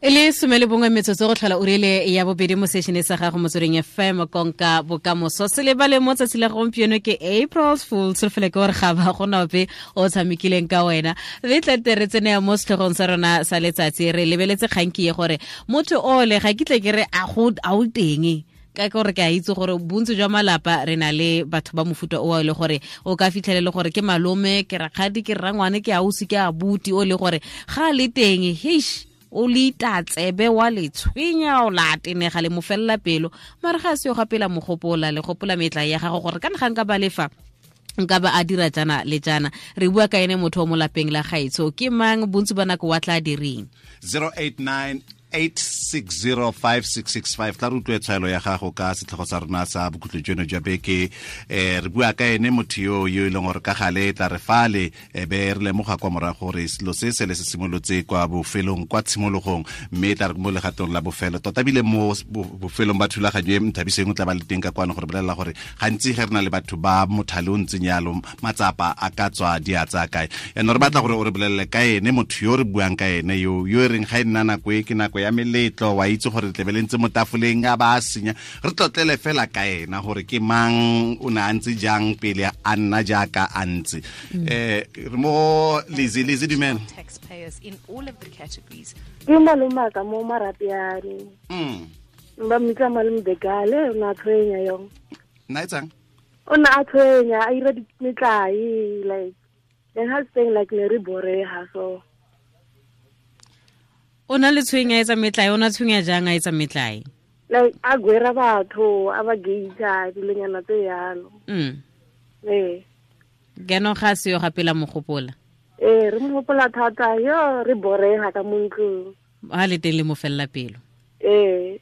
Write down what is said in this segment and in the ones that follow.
E le 11 metsotso go tlhola uri ya bobedi mo sešene sa gago Motsweding FM, konka bokamoso. Se lebale mo tsatsi la gompieno ke April Fool. Tsholofelo ke gore ga ba gona ope o tshamekileng ka wena. Re tlete re tsene mo setlhogong sa rona sa letsatsi, re lebeletse kganki ye gore motho ole ga ke tle ke re a go a o teng, ka gore ke a itse gore bontsi jwa malapa re na le batho ba mofuta o e le gore o ka fitlhele le gore ke malome, ke rakgadi, ke rrangwane, ke ausi, ke abuti, o le gore ga le teng heish o le itatsebe wa le tshwenya, o la tenega le mo felela pelo, mare ga se yo gapela mogopola le gopola metla ya gago gore ka nga nka ba lefa nka ba a dira jana le jana. Re bua ka ene motho o mo lapeng la gaetsho ke mang, bontsi ba nako wa tla direng? 089 8605665. Tla re utlwe tshwaelo ya gago ka setlhogo sa rona sa bokhutlo jono jwa beke. Re bua ka ene motho yo e leng gore ka gale tla re fale be re lemoga kwa morago gore selo se se le se simolotse kwa bofelong, kwa tshimologong, mme tla re mo legatong la bofelo tota bile mo bofelong ba thulaganyo e Nthabiseng o tla ba le teng ka kwano gore bolelela gore gantsi ge re na le batho ba mothale o ntseng yalo matsapa a ka tswa di a tsaya kae. Yaanong re batla gore o re bolelele ka ene motho yo re buang ka ene yo e reng ga e nna nako e ke nako ya meletlo, wa itse gore tlebe le ntse mo tafoleng a ba a senya, re tlotlele fela ka ena gore ke mang, o ne a ntse jang pele a nna jaaka a ntse. Re mo Lizzy. Lizzy, dumela. Ke malomaka mo Marapiane. Ba mmitsa malome Begale, o ne a tshwenya yong. Nna etsang? O ne a tshwenya, a ira metlae, like then ha saying like ne re boreha so. O na le tshwenya etsa metlae, o na tshwenya jang a etsa metlae? Like a gwera batho, a ba geita, dilonyana tse yalo. Keno ga se yo gapela mogopola. Re mo gopola thata, yo re boreha ka mo ntlong. Ha le teng le mo fella pelo. And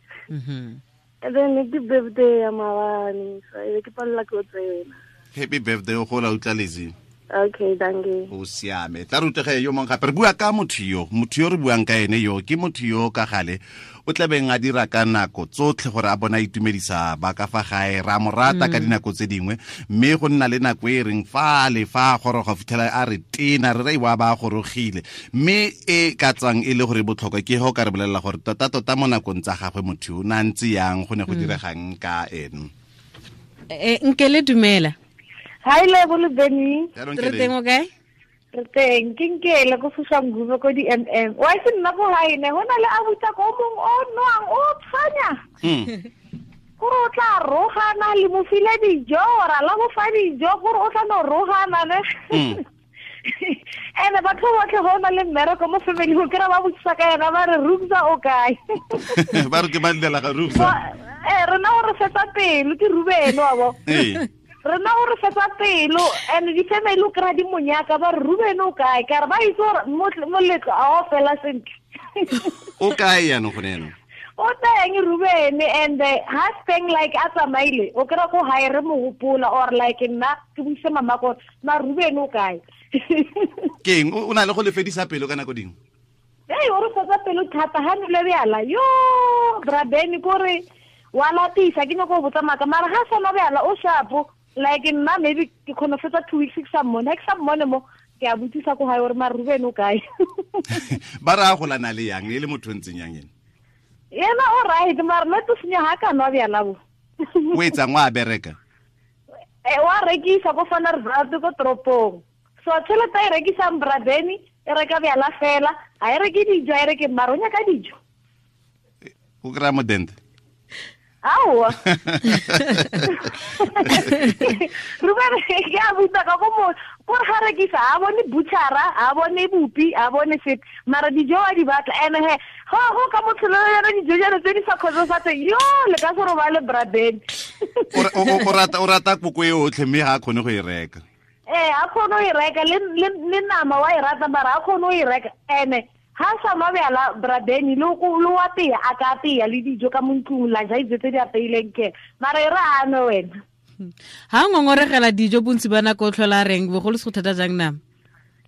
then ke birthday ya maabane, so e ke palela ke o tsena. Happy birthday o gola utla Lizzy. Okay, thank you. O siame. Tla re utlwege yo mongwe gape. Re bua ka motho yo, motho yo re buang ka ene yo ke motho yo ka gale o tlabeng a dira ka nako tsotlhe gore a bona itumedisa ba ka fa gae, ra mo rata ka dinako tse dingwe, mme go nna le nako e reng fa le fa goroga fitlhela a re tena re re wa ba gorogile, mme e ka tswang e le gore botlhokwa ke go ka re bolelela gore tota tota mo nakong tsa gagwe motho o na ntse yang, go ne go diregang ka ene. Nkele dumela. Hi Lebo le Benny. Re teng o kae? Re teng, ke Nkele ko Soshanguve ko di-MM. Wa itse nna ko gae ne go na le abuta ko mong o nwang o tshwanya. Gore o tla rogana le mo file dijo, ra la mo fa dijo gore o tla no rogana ne. Ene batho botlhe go na le mmereko mo family go kry-a ba botsisa ka yena ba re Rubza o kae. Ba re ke ba llela ga Rubza. Rena o re fetsa pelo ke Ruben wa bo. Rena o re fetsa pelo and di-family o kry-a di monyaka ba re Ruben o kae, ka re ba itse gore moletlo a o fela sentle. O kae yaanong gone yaanong? O teng Ruben, and ha steng like a tsamaile o kry-a ko gae re mo gopola or like nna ke buise mama gore ma Ruben o kae. Ke eng o na le go le fedisa pelo ka nako dingwe? Ei, o re fetsa pelo thata ha nole bjala yo Brabeni kore wa lapisa ke nyako go botsa maaka mara ga sa nwa bjala o shapo like nna maybe ke kgone fetsa 2 weeks ke sa mmone, ha ke sa mmone mo ke a botsisa ko gae gore ma Ruben o kae. Ba re a golana le yang e le motho o ntseng yang ene? Yena o right mara le to senya ha ka nwa bjala bo. O etsang, wa bereka? Wa rekisa ko Vanderbilt ko toropong. So tšhelete e rekisang Brabeni e reka bjala fela, ha e reke dijo, ha e reke mara o nyaka dijo. O kry-a modente? Aowa. Ruben ke a butsa ka ko mo gore ga rekisa a bone butchera, a bone bupi, a bone sepe, mara dijo wa di batla. Ene he go ka motho le yona dijo jalo tse di sa kgotsofatseng yo le ka se robale Brabeni. O rata koko e otlhe mme ga a kgone go e reka. A kgone go e reka le nama wa e rata mara a kgone go e reka. Ene ha sa nwa bjala Brabeni le wa tea, a ka apeya le dijo ka mo ntlong la ja dijo tse di apeileng ke mara e re a nwe wena. Ha ngongoregela dijo bontsi ba nako o tlhola reng bogolo se go thata jang nama?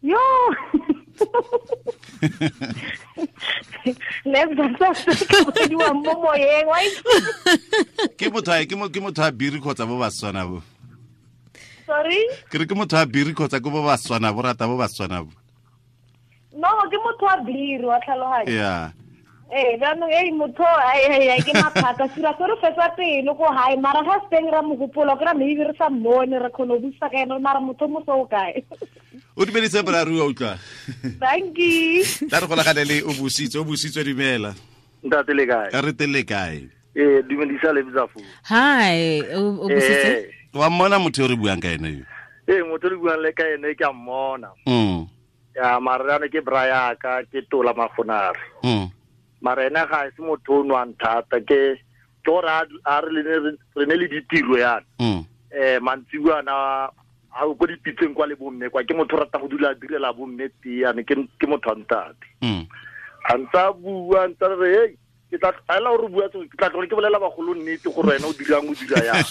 Yo. Mo moyeng, wa itse. Ke motho a, ke mo, ke motho a biri kgotsa bo Batswana bo? Sorry? Ke re ke motho a biri kgotsa ke bo Batswana bo, rata bo Batswana bo? No, ke motho wa biri, wa tlhaloganya. Yeah. Ee jaanong ei motho ke maphata sira se re fetsa pelo ko gae mara ga se teng ra mogopolo ke ra maybe re sa mmone re kgone go busa ka ene mara motho mo so o kae. O dumedise boraro wa utlwa. Thank you. Tla re golagane le o busitswe dumela. Ntate le kae? Re teng le kae? Dumedisa le Bzafu. Hi, o busitse? Wa mmona motho yo re buang ka ene yo? Ee, motho re buang le ka ene ke a mmona. Ya mara ke bra ka ke tola magonare. Mara ena ga se motho o nwang thata ke gore a re ne le ditiro yana. Mantsibuana a ko dipitseng kwa le bomme kwa ke motho rata go dula a direla bomme tee ke motho a ntate. A ntsa bua ntsa re hey ke tla ela o re bua ke tla tlogela ke bolela bagolo nnete gore wena o dirang o dira yang.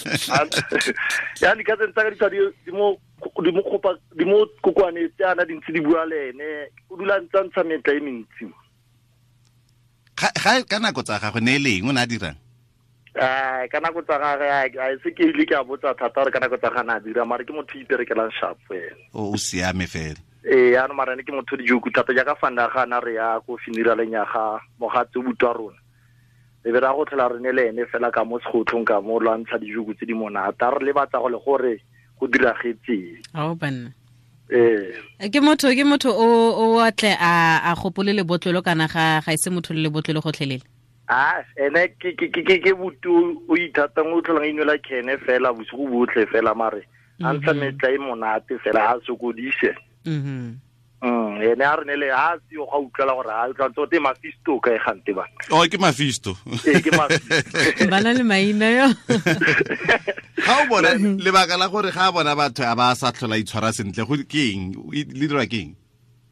Ya di ka tsa ka di mo kopa di mo kokwane tse ana dintsi di bua le ene o dula ntsa ntsha metla e mentsi. Ga ka nako tsa gagwe ne leng o na dirang? Ka nako tsa gagwe a se ke ile ke a botsa thata gore ka nako tsa gana a dira mara ke motho iperekelang sharp fela. O siame fela. Ee ano mara ne ke motho dijoku thata jaaka fanda ga ana re ya ko funeraleng ya ga mogatse o butwa rona. E be ra go tlhola re ne le ene fela ka mo segotlhong ka mo lwantsha dijoku tse di monate a re lebatsa go le gore go diragetseng. Ao banna. Ee. Ke motho o atle a gopole lebotlolo kana ga ise motho le lebotlolo gotlhelele. Ah, ene ke butu o ithatang o tlholang inwela kene fela bosigo botlhe fela mare a ntsha metla e monate fela a sokodise. Ene a re ne le a se yo ga utlwela gore a utlwa tsote Mafisto ka e gante ba. Oh, ke Mafisto. Ee, ke Mafisto. Bana le maina yo. Ga o bona lebaka la gore ga bona batho a ba sa tlhola itshwara sentle go ke eng? Le dira ke eng?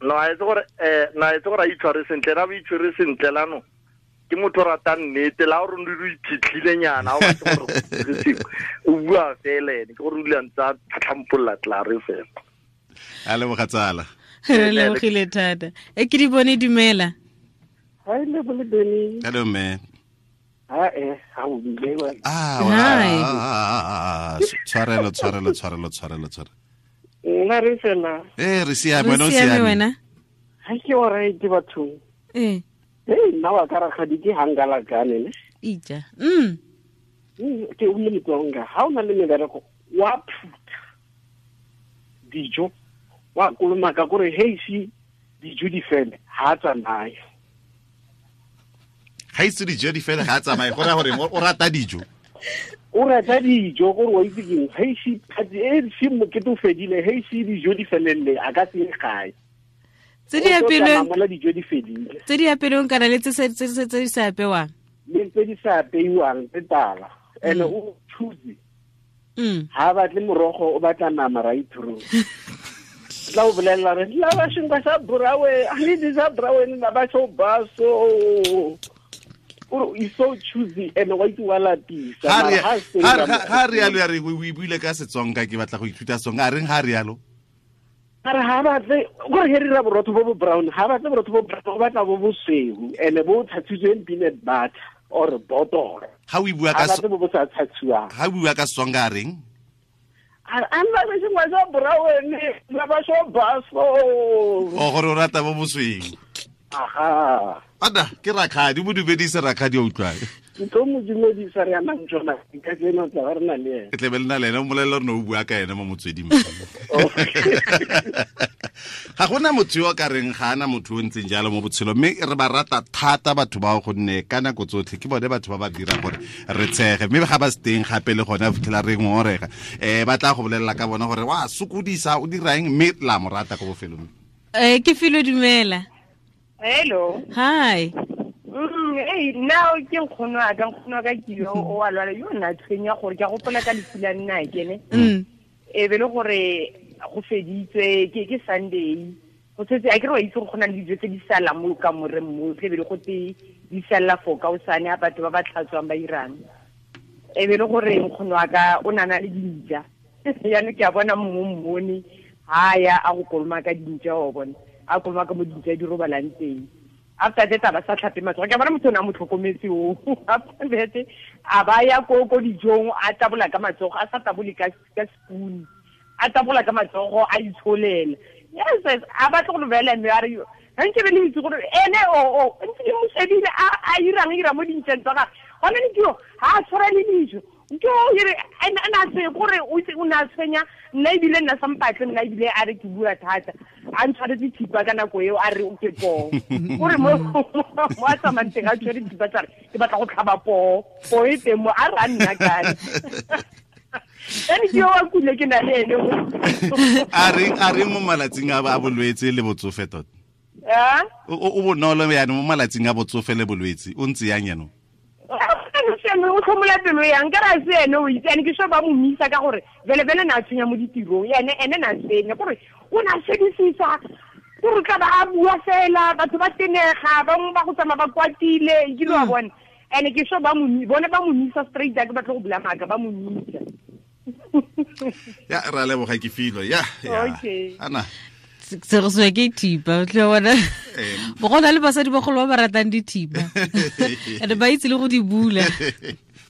No, a itse gore na itse gore a itshware sentle ra ba itshwere sentle lano. Ke motho rata nnete la gore o iphitlhile nyana o batla gore o bua fela ene ke gore o dula ntsa tlhampolola tlare fela. A leboga tsala. Re lebogile thata. E ke di bone dumela. Hi le bole Beni. Hello man. Ha ha o bile wa. Ah, tshwarelo. Nna re fela. Re siame wena o siame. Wena. Ha ke o re ke batho. Eh. Hey, nna wa ka rakgadi ke hangala kane ne. Ija. Ke o le motsonga. Ha o na le mebereko wa phutha dijo wa kolomaka gore hey si dijo di fele ha tsamaye. Ga itse dijo di fele ga tsamaye go ra gore o rata dijo. O rata dijo gore wa itse keng hey si phatsi e si mokete o fedile hey si dijo di felelle a ka se gae. Tse di apelweng dijo di fedile. Tse di apelweng kana le tse di sa apewang. Le tse di sa apeiwang tse tala. Ene o choose. Ha batle morogo o batla nama right through. La o bolela re la ba shinga sa brawe a le di sa brawe na ba so ba so o is so choosy and wa itse wa lapisa ha re yalo ya re o buile ka Setsonga ke batla go ithuta Setsonga a reng ha re yalo a re ha batle gore he re ra borotho bo bo brown ha batle borotho bo brown o batla bo bosweu ene bo thatsitsweng peanut butter or botoro ha o bua ka bo bo sa thatsiwang ha o bua ka Setsonga a reng a nna sengwe sa brown la ba so baso o gore o rata bo bosweu aha ada ke rakgadi mo dumedise rakgadi o utlwang ke tlo mo dumedisa re amang tsona ka tseno tla re na le ene ke tle be le na le ene o molelela re ne o bua ka ene mo motsweding ga gona motho yo ka reng ga ana motho o ntseng jalo mo botshelong mme re ba rata thata batho bao gonne ka nako tsotlhe ke bone batho ba ba dirang gore re tshege mme ga ba se teng gape le gone fitlhela re ngongorega ba tla go bolelela ka bona gore wa sokodisa o dirang mme la mo rata ko bofelong. Ke filo dumela. Hello. Hi. Hey, now ke nkgono a ka nkgono ka ke yo o a lwala yo nna tshwenya gore ke a gopola ka lefu la nna ke ne. E be le gore go feditswe ke Sunday. Go setse a ke re wa itse go na le dijo tse di salang mo ka moreng mo tle be le go te di salla for ka o sane a batho ba ba tlhatswang ba irang. E be le gore nkgono a ka o nana le dintja. Yaanong ke a bona mongwe mmone ha ya a go koloma ka dintja o bona. A koloma ka mo dintja di robalang teng. After that ba sa tlhape matsogo ke bona motho o ne a mo tlhokometse o after that a ba ya ko dijong a tabola ka matsogo a sa tabole ka spoon a tabola ka matsogo a itsholela yes a batla go lebela mme a re Ga nke be le itse gore ene o ntse ke mo shebile a irang ira mo dintšeng tsa gagwe. Gone ne ke yo ga a tshwara le dijo. Ke o ire ena se gore o itse o ne a tshwenya nna ebile nna sa mpatle nna ebile a re ke bua thata. A ntshwaretse thipa ka nako eo a re o ke poo. O re mo a tsamayang teng a tshwere thipa tsa re ke batla go tlhaba poo. Poo e teng mo a re a nna kae. Ene ke yo wa kule ke na le ene mo. A re mo malatsing a bolwetse le botsofe tota. O bonolo yana mo malatsing a botsofe le bolwetse o ntse yang yana. O tlhomola pelo yang ka ra se ene o itse ene ke sho ba mo misa ka gore vele vele na tshwenya mo ditirong ene ene na tshwenya gore o na shebisisa gore tla ba a bua fela batho ba tenega bangwe ba go tsamaya ba kwatile ke lo a bona ene ke sho ba mo bone ba mo misa straight ke batla go bula maaka ba mo misa. Ya ra leboga ke filo ya okay ana se go swe ke thipa o tla bona bo gona le basadi bagolo ba ba ratang dithipa ene ba itse le go di bula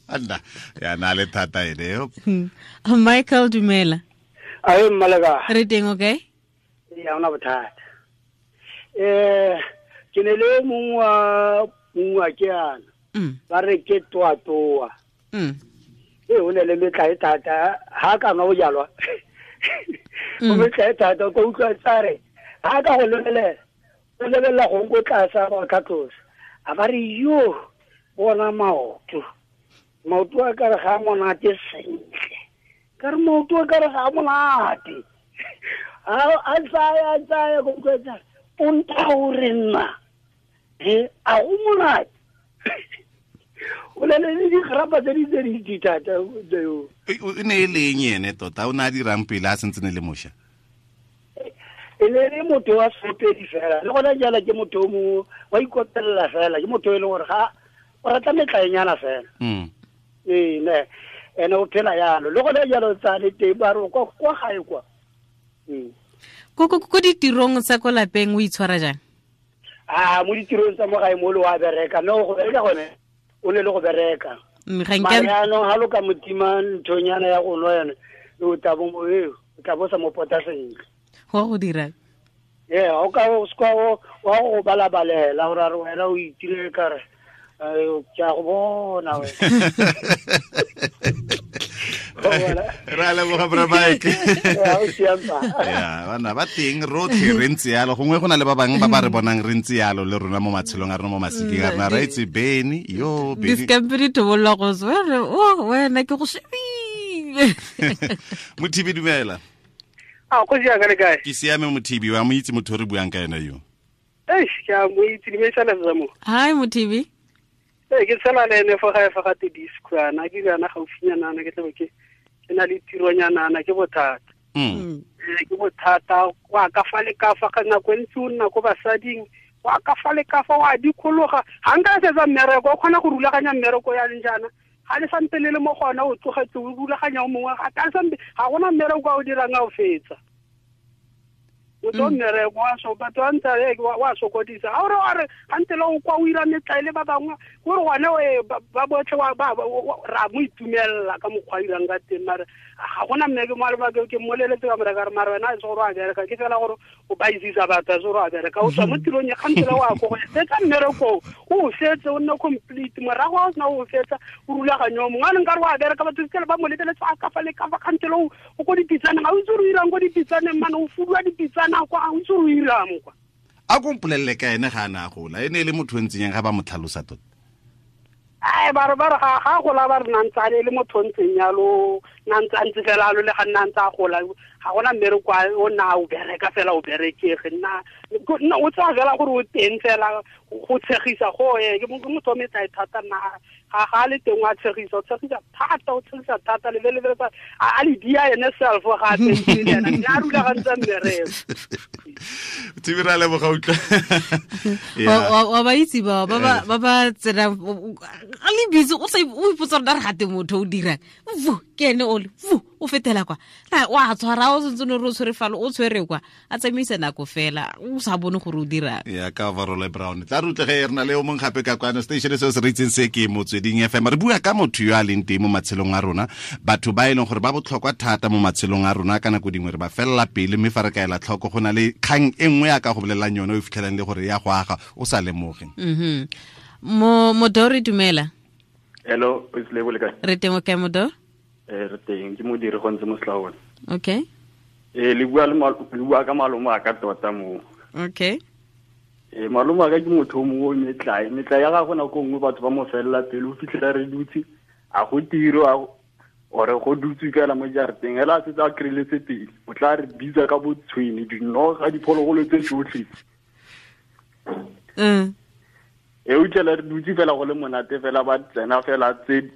anda ya na le thata ene. Michael dumela. Ae mmaleka re teng okay ya ona bothata ke ne le mongwe wa ke ana ba re ke toa toa o ne le metla e thata ha ka nwa bojalwa o metla e thata ko utlwa tsare ha ka go lebelela o lebelela go go tlasa ba tlhatlosa a ba re yo bona maoto maoto a ka re ga monate sentle ka re maoto a ka re ga monate a tsaya go utlwa tsare o nta o re nna a go monate o le le digrapa tse di tse di thata o ne e leng ene tota o ne a dirang pele a sentse ne le mošwa e ne le motho wa seopedi fela le gona jala ke motho o mongwe wa ikopelela fela ke motho e leng gore ga o rata metlaenyana fela ee ne ene o phela yalo le gona jalo tsa le teng ba re kwa gae kwa ko ditirong tsa ko lapeng o itshwara jang? A mo ditirong tsa mo gae mo le wa bereka no go bereka gone o ne le go bereka jaanong ga lo ka motima nthonyana ya go nwa yone o tla bo o tla bo sa mo pota sentle go go dirang ee o ka o seka wa go balabalela gore a re wena o itire kare ke a go bona wena. Ra leboga bra Mike. Ya bana ba teng rotlhe re ntse yalo gongwe go na le ba bangwe ba ba re bonang re ntse yalo le rona mo matshelong a rona mo masikeng a rona ra itse Beni yo Beni diskampiri tobolla go tswere o wena ke go shebile. Mothibi dumela. A go ja ka le kae? Ke siame Mothibi wa mo itse motho re buang ka ena yo. Eish ke a mo itse dimesana tsa mo. Hi Mothibi. Ke tshela le ene fo gae fa ga te disco ana ke yana gaufinyana ana ke tlabe ke na le tironyana ana ke bothata. Ke bothata wa ka fa le ka fa ka nako e ntsi o nna ko basading wa ka fa le ka fa wa dikologa ga nka setsa mmereko o kgona go rulaganya mmereko ya leng jaana ga le sampe le le mo gona o tlogetse o rulaganya o mongwe ga ka sampe ga gona mmereko a o dirang a o fetsa. O tlo mmereko wa so batho ba ntse wa sokodisa a ore a re gante le o kwa o ira metlaele ba bangwe gore gone ba botlhe ra mo itumelela ka mokgwa a irang ka teng mare ga gona mme ke mo ke mmoleletse ka moreka re mare wena a se gore a bereka ke fela gore o ba isisa batho a se gore a bereka o tswa mo tirong ya gante le wa ko go fetsa mmereko o fetse o nne complete morago a o sena o fetsa o rulaganyo mongwe a leng ka re wa bereka batho fitlhele ba mo lebeletse a ka fa le ka fa gante le o ko dipitsaneng ga o itse gore o irang ko dipitsaneng mane o fuduwa dipitsana kwa ga o itse gore o irang kwa. A ko mpolelele ka ene ga a ne a gola e ne e le motho o ntseng yang ga ba mo tlhalosa tota? Ai ba re ga gola ba re nantse a le motho o ntseng yalo nantse a ntse fela alo le ga nna ntse a gola ga gona mmereko o nna o bereka fela o berekege nna o tsaya fela gore o teng fela go tshegisa go e ke motho o metlae thata nna ga le teng wa tshegisa o tshegisa thata o tshegisa thata lebelebele a le dia ene self ga a teng le ena a rulagantse mmereko. Thibi ra leboga utlwa. Wa ba itse ba ba tsena le le busy o sa o ipotsa gore re gate motho o dirang vu ke ene ole vu o fetela kwa wa tshwara o sentse no re o tshwere falo o tshwere kwa a tsamaisa nako fela o sa bone gore o dirang ya ka overall brown tla re utlwe re na le o mong gape ka kwano station se se re itseng se ke Motsweding FM re bua ka motho yo a leng teng mo matshelong a rona batho ba e leng gore ba botlhokwa thata mo matshelong a rona ka nako dingwe re ba felela pele mme fa re kaela tlhoko go na le kgang e nngwe ya ka go bolelelang yone o fitlhelang le gore ya go aga o sa lemoge. Modori dumela. Hello, o le kae? Re teng o kae Modori? Re teng ke modiri go ntse mo Slaone. Okay. Le bua ka malome a ka tota mo. Okay. Malome a ka ke motho o mongwe o metlae ya gagwe nako nngwe batho ba mo felela pele o fitlhela re dutse a go tiro ore go dutse fela mo jarateng hela a setse a kry-letse pele o tla re bitsa ka botshwene dinoga diphologolo tse tsotlhe. E utlwela re dutse fela go le monate fela ba tsena fela tse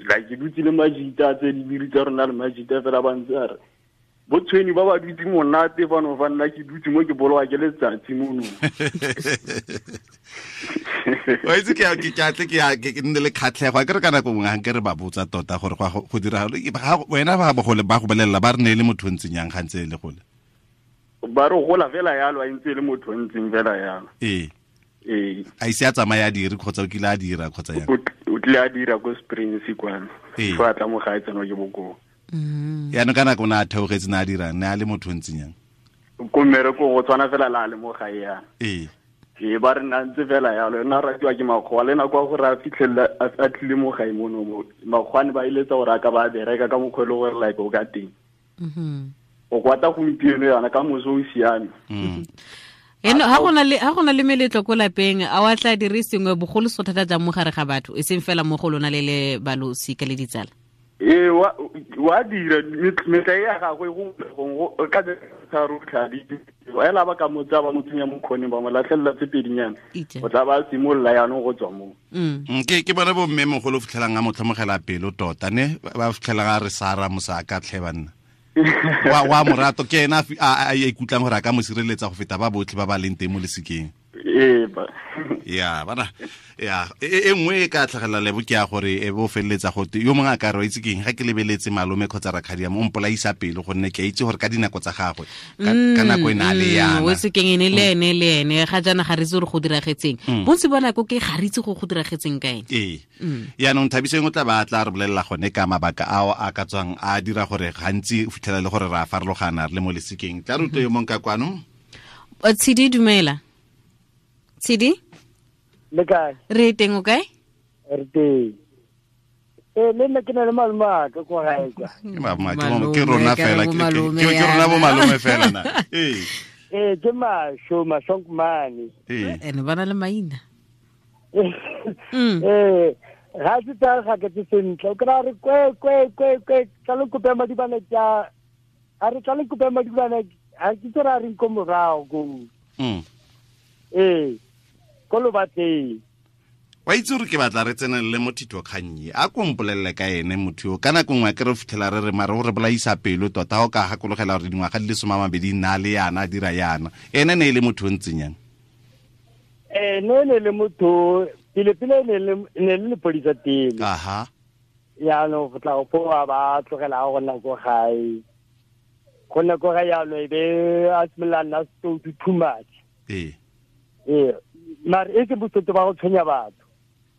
like ke dutse le majita tse dibiri tsa rona le majita fela ba ntse a re botshweni ba ba dutse monate fano fa nna ke dutse mo ke bolowa ke letsatsi mono. Wa itse ke atle ke nne le kgatlhego a ke re ka nako nngwe ga nke re ba botsa tota gore go dira wena ba bogole ba go bolelela ba re ne e le motho o ntseng yang ga ntse e le gole ba re gola fela yalo a ntse e le motho o ntseng fela yalo. Ee a ise a tsamaya a dire kgotsa o kile a dira kgotsa yang o tlile a dira ko Springs kwana fa a tla mo gae tsenwa ke bokoo. Yaanong ka nako o ne a theogetse ne a dirang ne a le motho o ntseng yang ko mmereko go tshwana fela la le mo gae yana. Ee ba re nna ntse fela yalo nna ratiwa ke makgowa le nako ya gore a fitlhelela a tlile mo gae mono mo makgowane ba eletsa gore a ka ba bereka ka mokgwa e le gore like o ka teng. O kwata gompieno yana ka moso o siame. Eno ha gona le meletlo ko lapeng a wa tla dire sengwe bogolo so thata jang mo gare ga batho e seng fela mo go lona le le balosika le ditsala. Ee wa dira metlae ya gagwe go ka tharo tlhadi ela ba ka motsa ba mo tsenya mo khoneng ba mo latlhelela tse pedinyana o tla ba simolola yaanong go tswa mo. Ke bone bo mme mogolo fitlhelang a mo tlhomogela pelo tota ne ba fitlhelang a re Sara mosaka tlhe banna wa morato ke ena a ikutlwang gore a ka mo sireletsa go feta ba botlhe ba ba leng teng mo lesikeng. Ya bana ya e nngwe e ka tlhagelela lebo ke ya gore e bo feleletsa gote yo mongwe a ka re wa itse keng ga ke lebeletse malome kgotsa rakgadi mo mpolaisa pelo gonne ke a itse gore ka dinako tsa gagwe ka nako e ne a le yana o itse keng ene le ene le ene ga jaana ga re itse gore go diragetseng bontsi ba nako ke ga re itse go diragetseng ka ene. Ee yaanong Thabiseng o tla ba tla re bolelela gone ka mabaka ao a ka tswang a dira gore gantsi o fitlhela le gore re a farologana re le mo lesikeng. Tla re utlwe yo mongwe ka kwano. Tshidi dumela. Tshidi? Le kae? Re teng o kae? Re teng. Le nna ke na le malome a ka kwa gae kwa. Ke rona fela ke rona bo malome fela na. Ee ke masho mashonkmane. Ene ba na le maina. Ga se tsa ga ke sentle o kra re kwe kwe kwe kwe tla le kope madibane tsa a re tla le kope madibane a ke tsora re nko morago go. Ko lo batleng. Wa itse gore ke batla re tsenelele mo thitokgannye a ko mpolelele ka ene motho yo ka nako nngwe ke re fitlhela re re mare o re bolaisa pelo tota o ka gakologela gore dingwaga di le 20 nna le yana a dira yana ene ne e le motho o ntseng yang. Ne ne le motho pele pele ne le lepodisa pele. Aha. Yaanong go tla go foa ba tlogela go nna ko gae. Go nna ko gae yaanong e be a simolola nna setoutu too much. Ee. Mare e ke botsoto ba go tshwenya batho.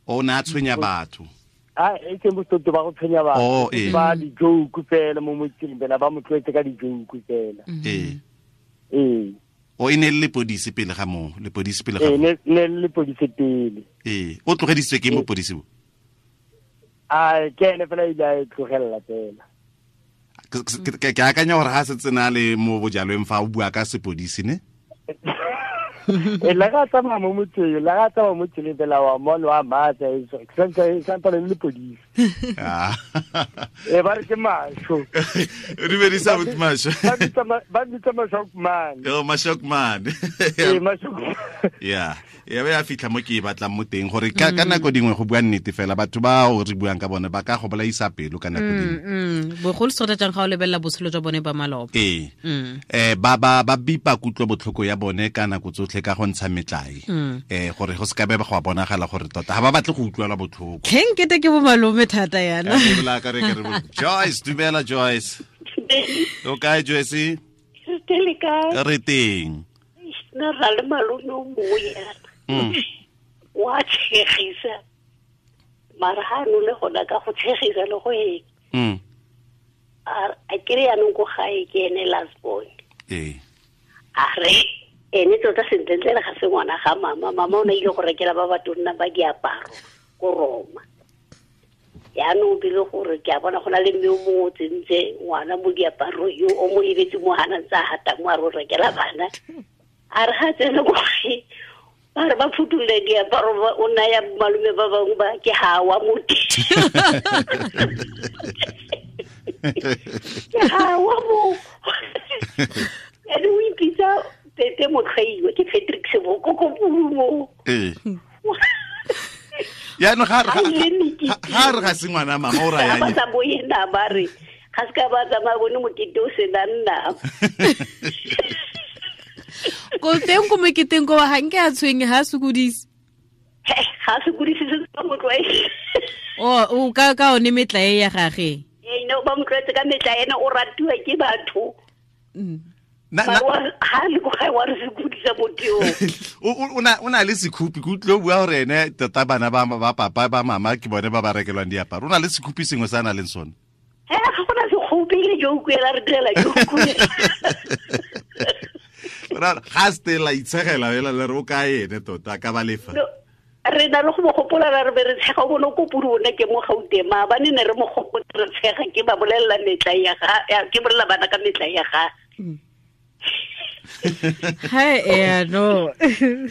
O ne a tshwenya batho. A e ke botsoto ba go tshwenya batho. Ba di-joke fela mo motseng fela ba mo tlwaetse ka di-joke fela. Ee. O e ne le lepodisi pele ga moo, lepodisi pele ga moo. Ne le lepodisi pele. Ee, o tlogedisitswe ke mopodisi bo? A ke ene fela ile a e tlogelela fela. Ke akanya gore ga setse na le mo bojalweng fa o bua ka sepodisi ne? La ga tsamaya mo motseng, la ga tsamaya mo tseleng fela wa mone wa matsa e santse le lepodisi. E ba re ke Masho. Re bedisa with Masho. Ba bitsa Mashokman. Yo Mashokman. Eh Mashokman. Yeah. Ya be a fitlha mo ke e batlang mo teng gore ka nako dingwe go bua nnete fela batho ba o re buang ka bone ba ka go bolaisa pelo ka nako dingwe. Bogolo sota jang ga o lebelela botshelo jwa bone ba maloba. Ee. Ba bipa kutlo botlhoko ya bone ka nako tsotlhe ka go ntsha metlae. Gore go se ka be ba go bonagala gore tota ga ba batle go utlwela botlhoko. Keng kete ke bo malome thata yana. Joyce, dumela Joyce. O kae Joyce? Re teng. Nna ra le malome o mongwe yana. Wa tshegisa mara ha no le gona ka go tshegisa le go eng. A kere yanong ko gae ke ene last born. A re ene tota sentlentle ga se ngwana ga mama. Mama o ne ile go rekela ba batonna ba diaparo ko Roma. Yaanong bile gore ke a bona go na le mme o mongwe o tsentse ngwana mo diaparo yo o mo lebetse mo hana ntse a hata mo a re o rekela bana. A re ga tsene ko gae ba re ba phuthulle diaparo o naya malome ba bangwe ba ke hawa mo ke hawa mo. Ene o ipitsa Pepe Motlhaiwa ke Patrick Seboko ko Pulumo. Ya no ga re ga se ngwana mama o raya ba sa boena ba re ga se ka ba tsamaya bone mokete o senang nama. Ko teng ko moketeng ko ga nke a tshwenye ga sokodise. Ga sokodise se ba mo tlwaetse. O ka one metlae ya gage. Ee, no ba mo tlwaetse ka metlae ena o ratiwa ke batho. Ha le go ga wa re sokodisa motho yo. O na le sekhupi ke utlwe o bua gore ene tota bana ba papa ba mama ke bone ba ba rekelwang diaparo. O na le sekhupi sengwe se a na leng sone. Ga gona sekhupi le joke ela re direla joke. Ga stela itshegela fela le re o ka ene tota ka ba lefa. Re na le go mo gopola re be re tshega o bone ko pudi one ke mo Gauteng maabane ne re mo gopotse re tshega ke ba bolelela metla ya ga ke bolela bana ka metla ya ga. Hi eh no.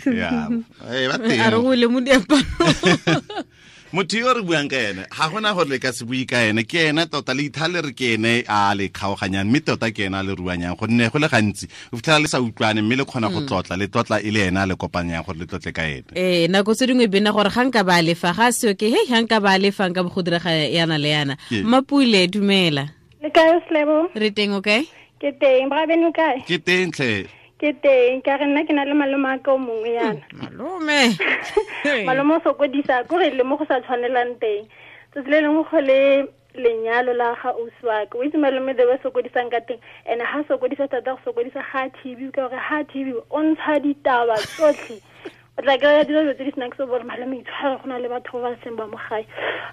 Ya, ba teng. A re go le mo diaparo. Motho yo re buang ka ene ga gona gore le ka se bue ka ene ke ene tota le ithale re ke ene a le kgaoganyang mme tota ke ene a le ruanyang gonne go le gantsi o fitlhela le sa utlwane mme le kgona go tlotla le tlotla e le ene a le kopanyang gore le tlotle ka ene. Ee, nako tse dingwe bena gore ga nka ba lefa ga seo ke he ga nka ba lefa nka bo go direga yana le yana. Mapule dumela. Le kae Slebo? Re teng o kae? Ke teng, bra beno kae? Ke teng tlhe. Ke teng, ka re nna ke na le malome a ka o mongwe yana. Malome. Malome o sokodisa ko re le mo go sa tshwanelang teng. Tsatsi le lengwe go le lenyalo la ga ausi wa ka. O itse malome the way sokodisang ka teng. Ene ha sokodisa thata go sokodisa ga TV ka gore ha TV o ntsha ditaba tsotlhe. O tla kry-a dilo tse di senang se gore malome itshware go na le batho ba ba seng ba mo gae.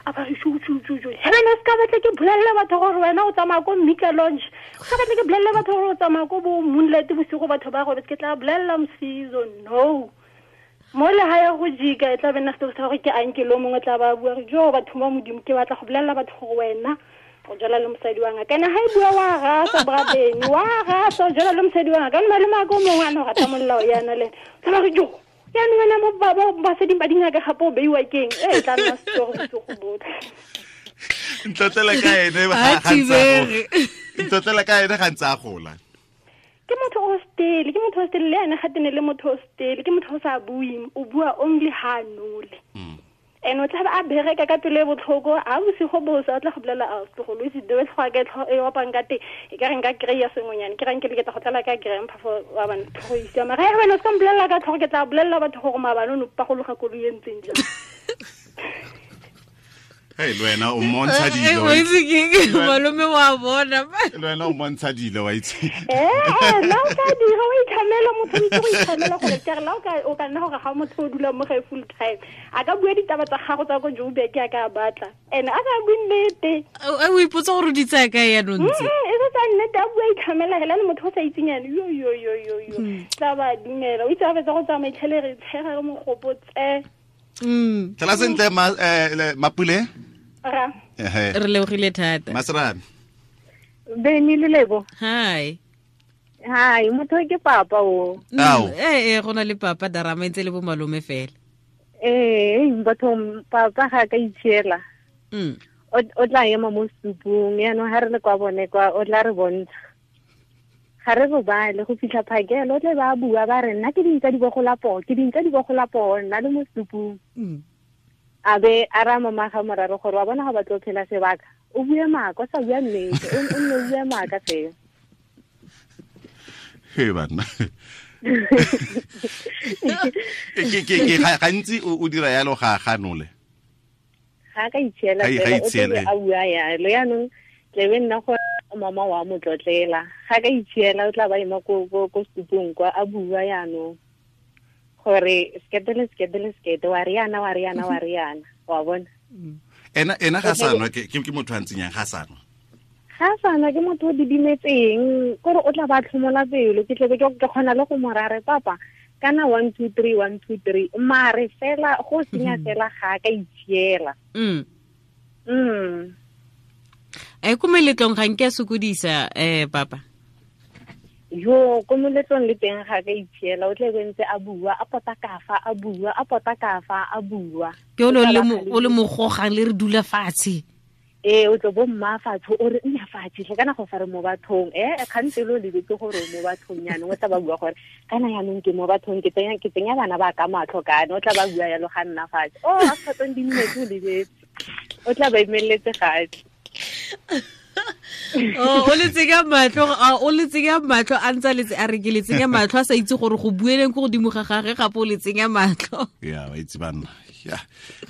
A ba re shu. He wena se ka batla ke bolelela batho gore wena o tsamaya ko Mika Lounge. Se ka batla ke bolelela batho gore o tsamaya ko bo Moonlight bosigo batho ba robetse ke tla bolelela Msizo. No. Mo le ha ya go jika e tla be nna setori sa gore ke anke lo mongwe tla ba bua re jo batho ba Modimo ke batla go bolelela batho gore wena o jala le mosadi wa ngaka. Kana ha e bua wa rasa brabeng wa rasa o jala le mosadi wa ngaka. Malome a ko mongwe a ne o rata molao yana le. Tla ba re jo yaanong wena mo basading ba dingaka gape o beiwa keng e tla nna setori bosigo botlhe. Ntlotlele ka ene ntlotlele ka ene ga ntse a gola. Ke motho o stele, ke motho o stele le ene ga tene le motho o stele, ke motho o sa buing, o bua only ha nole. Ene o tla ba a bereka ka pelo e botlhoko a bosigo bosa o tla go bolela a tlogolo itse the way tlhogo ka e opang ka teng e ka re nka kry-a sengwenyane ke reng ke leketa go tlala ka grandpa for wa bana tlhogo e siama. Ga wena o se ka mpolelela ka tlhogo ke tla bolelela batho gore maabane o ne o pagologa koloi e ntseng jang. Hey, le wena o mmontsha dilo. O itse ke malome wa bona. Le wena o mmontsha dilo wa itse. La o ka dira o itlhamela motho o itse go itlhamela gore ke re la o ka nna gore ga motho o dula mo gae full time. A ka bua ditaba tsa gago tsa ko Joburg a ka batla. Ene a sa bue nnete. O ipotsa gore o di tsaya kae yanong tse. E se tsa nnete a bua itlhamela hela le motho o sa itseng yana yo yo yo yo yo. Tla ba dumela. O itse a fetsa go tsamaya itlhele re tshega re mogopotse. Tlala sentle Mapule. Ra. Re lebogile thata. Masrame. Beni le Lebo. Hi. Hi, motho ke papa o. Ao. Go na le papa darama ntse le bo malome fela. Batho papa ga ka itshiela. O tla ema mo setupung, yaanong ga re le kwa bone kwa, o tla re bontsha. Ga re robale go fitlha phakelo, o tle ba bua ba re nna ke dintsa di bogola poo, ke dintsa di bogola poo, nna le mo setupung. A be a ra mama ga moraro gore wa bona ga ba tlo phela sebaka, o bue maaka, o sa bua nnete, o nne o bue maaka fela. He banna. Ke gantsi o dira yalo ga ganole. Ga ka itshiela fela, o tle a bua yalo, yaanong tlebe nna gore mama wa mo tlotlela. Ga ka itshiela o tla ba ema ko setupong kwa a bua yaanong gore sekete le sekete le sekete, wa riana, wa riana, wa riana, wa bona. Ena ga sanwa ke motho a ntseng yang ga sanwa. Ga sanwa ke motho o didimetseng, kore o tla ba tlhomola pelo, ke tlebe ke kgona le go mo rare papa kana 1 2 3 1 2 3, mare fela go senya fela ga ka itshiela. E ko meletlong ga nke sokodisa papa. Yo ko moletlong le teng ga ka itshiela, o tle be ntse a bua, a pota kafa, a bua, a pota kafa, a bua. Ke o le mogogang le re dula fatshe. Ee, o tlo bo mma fatshe, o re nna fatshe tlhe, kana go fa re mo bathong, kgantse lo lebetse gore o mo bathong yaanong, o tla ba bua gore kana yaanong ke mo bathong, ke tsenya bana ba ka matlho kana, o tla ba bua yalo ga nna fatshe. Oh, after 20 minutes o lebetse, o tla ba emeletse gape. Oh, o le tsenya matlho, o le tsenya matlho, a ntse a letse a re ke le tsenya matlho, a sa itse gore go bueleng ko godimo ga gagwe, gape o le tsenya matlho. Ya, wa itse banna. Ya.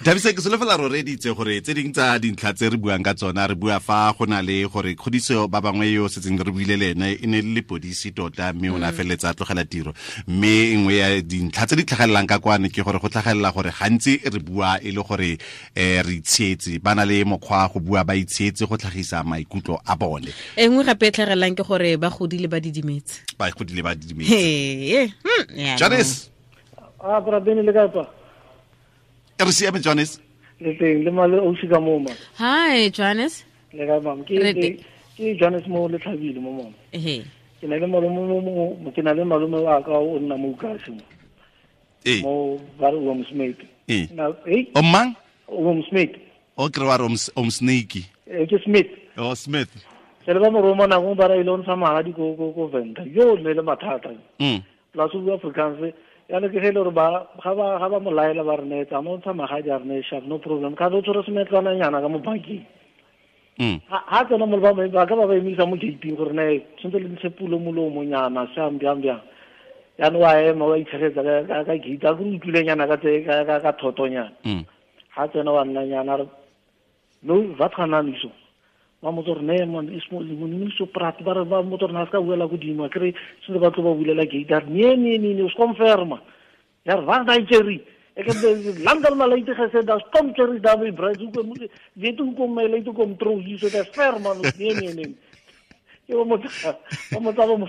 Thabisa, ke solofela re reditse gore tse ding tsa dintlha tse re buang ka tsona, re bua fa go na le gore kgodiso ba bangwe yo setseng re buile le ene e ne le lepodisi tota, mme o ne a feleletsa a tlogela tiro. Mme nngwe ya dintlha tse di tlhagelelang ka kwane ke gore go tlhagelela gore gantsi re bua e le gore re itshietse, ba na le mokgwa go bua ba itshietse go tlhagisa maikutlo a bone. E nngwe gape e tlhagelelang ke gore ba godile ba didimetse. Ba godile ba didimetse. Jonas. A bra bene le ka re siame Jonas. Le teng le male o sika mo ma. Hi Jonas. Le ka bang ke Jonas mo le tlhabile mo mo. Ehe. Ke na le malome mo, ke na le malome wa ka o nna mo ukase mo. Eh. Mo ba re o Smith. Eh. Na eh. O mang? O Smith. O kre wa re o Snake. Eh ke Smith. O Smith. Se le ba mo roma na go ba ra ile o ntsha magadi ko ko Venda. Yo ne le mathata. Plus o Afrikaans. Ya le ke ge le gore ba ga ba mo laela ba re ne tsa mo ntsha magadi a re ne sharp, no problem. Ka o tshwere semetlwana nyana ka mo bankeng. Ha tsena mo ba ba ka ba ba emisa mo gate gore ne tshwantse le ntshe pulo molomo nyana sham byang byang. Ya no wa ema wa itshegetsa ka gate a go utlwile nyana ka tse ka thotonyana. Ha tsena wa nna nyana re no va tshana niso. Ba mo tsore ne man ismo mo so prat ba re ba mo tsore na ska buela godimo a kre se ba tlo ba bulela gate a nee nee nee o confirma. Ya re va daai cherry. Ek het lankal maar late gesê daar kom cherry daar by bread hoe kom weet hoe kom my late kom trou hier so daar ver man nee nee nee. Ke mo mo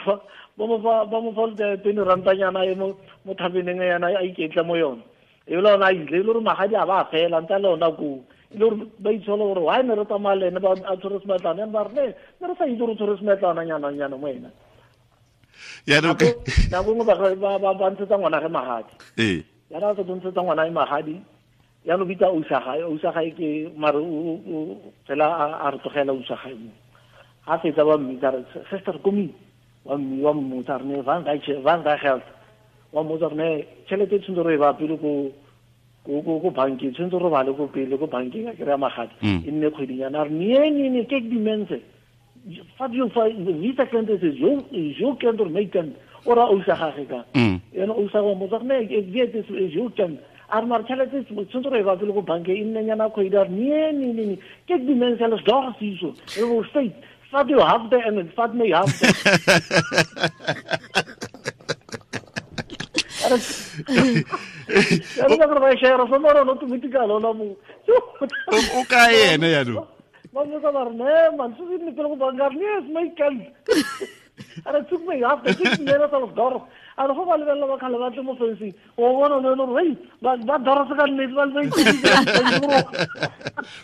fa tene ranta nyana e mo thabeneng yana a iketla mo yona. E le ona ile le re magadi a ba fela ntse le ona ko. Le gore ba itshola gore why ne re tsamaya le ene ba a tshwere semetlana, ba re ne re sa itse gore tshwere semetlana nyana nyana mo ena. Ya no ke nako nngwe ba ntshetsa ngwana ge magadi. Ee. Ya ra tlo ntshetsa ngwana e magadi. Ya no bitsa o sa gae ke mare o fela a re tlogela o sa gae mo. Ha fetsa ba mmitsa re sister komi wa mmotsa re ne van daai geld. Wa mmotsa re ne tšhelete e tshwanetse re e ba pele ko ko bankeng, tshwanetse re bale ko pele ko bankeng a kry-a magadi e nne kgwedinyana. A re nee nee nee ke dimense fa jo fa visa client se jo jo kind or my kind o ra o sa gage ka ena o sa go mmotsa re ne ke jo kind a re mare tšhelete tshwanetse re e ba pele ko bankeng e nne nyana kgwedi. A re nee nee nee ke dimense le dog siso re go state fa jo half day and fa me half day. Ya re ba share so mara no tumitikalo la mo. O ka ene ya no. Ba mo ba re ne man so ne pele go banka ne is my kind. Ara took me half the six minutes of door. Ara go ba lebella ba khala ba tle mo fencing. O bona no no re ba dora se ka nnete ba le.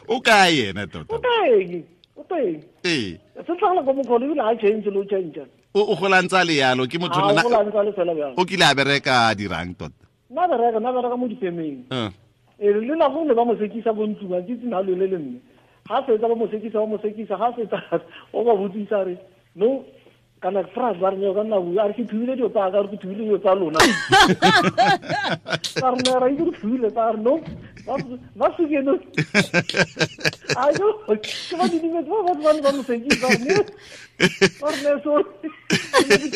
O ka ene tota. O teng. O teng. Ee. Se tlogela go mo khone ebile ha change lo change. O gola ntse le yalo ke motho nna. O gola ntse le fela bjang. O kile a bereka dirang tota. Nna bereka mo difemeng. E le nako ne ba mo sekisa ko ntlong a ke tsena le le mme. Ga fetsa ba mo sekisa ga fetsa o ba botsisa re no kana France ba re ka nna bua a re ke thubile dilo tsa ka re ke thubile dilo tsa lona ka re ne ra itse re thubile tsa re no ba suke no a yo ke ba didimetse ba ba ba mo sekisa ne ba re ne so ke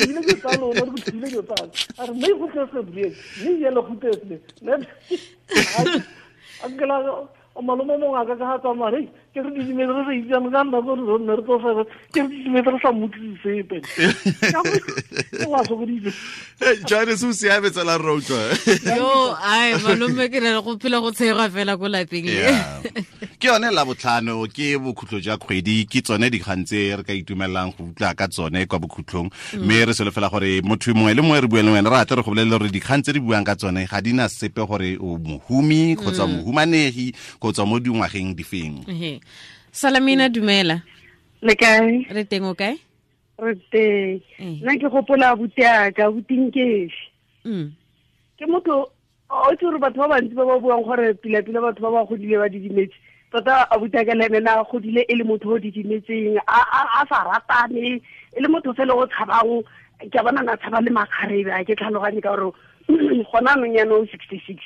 thubile dilo tsa lona re ke thubile dilo tsa a re me go tle se brie me yelo go tle se ne a ke la o malome mongwe a ka ka ga tsamaya re ke re didimetse re sa itsane ka nna gore re nne re tlo fela ke re didimetse re sa mmotlise sepe wa sokoditse Johannes o siame tsela re utlwa yo ai malome ke re go phela go tshegwa fela ko lapeng le ke yone la botlhano ke bokhutlo jwa kgwedi ke tsone dikgang tse re ka itumelang go utlwa ka tsone kwa bokhutlong mme re solofela gore motho mongwe le mongwe re buang le wena re atle re go bolelele gore dikgang tse di buang ka tsone ga di na sepe gore o mohumi kgotsa mohumanegi kgotsa mo dingwageng difeng. Salamina dumela. Le kae? Re teng o kae? Re teng. Nna ke gopola abuti aka, abuti Nkefi. Ke motho o itse gore batho ba bantsi ba ba buang gore pila-pila batho ba ba godile ba didimetse. Tota abuti aka le ene na godile e le motho o didimetseng, a sa ratane, e le motho fela o tshabang, ke a bona na tshaba le makgarebe, a ke tlhaloganye ka gore gona anong jaanong 66.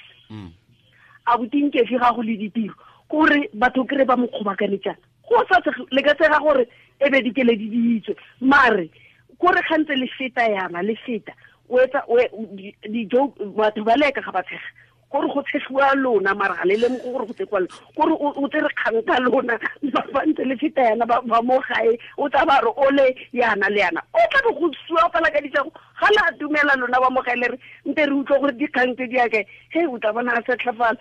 Abuti Nkefi ga go le ditiro, kore batho kry ba mo kgobakanetsana. Go sa le ka tsega gore e be dikeledi di itswe, mare kore gantse le feta yana le feta o etsa dijo batho ba leka ga ba tshega gore go tshegiwa lona mara ga le lemoge gore go tshegiwa lona, kore o tsere kgang ka lona ba ntse le feta yana ba mo gae o tla ba re ole yana le yana o tla be go sua fela ka ditšego ga la dumela lona ba mo gae le re nte re utlwe gore dikgang tse di yakae he o tla bona a setlhafala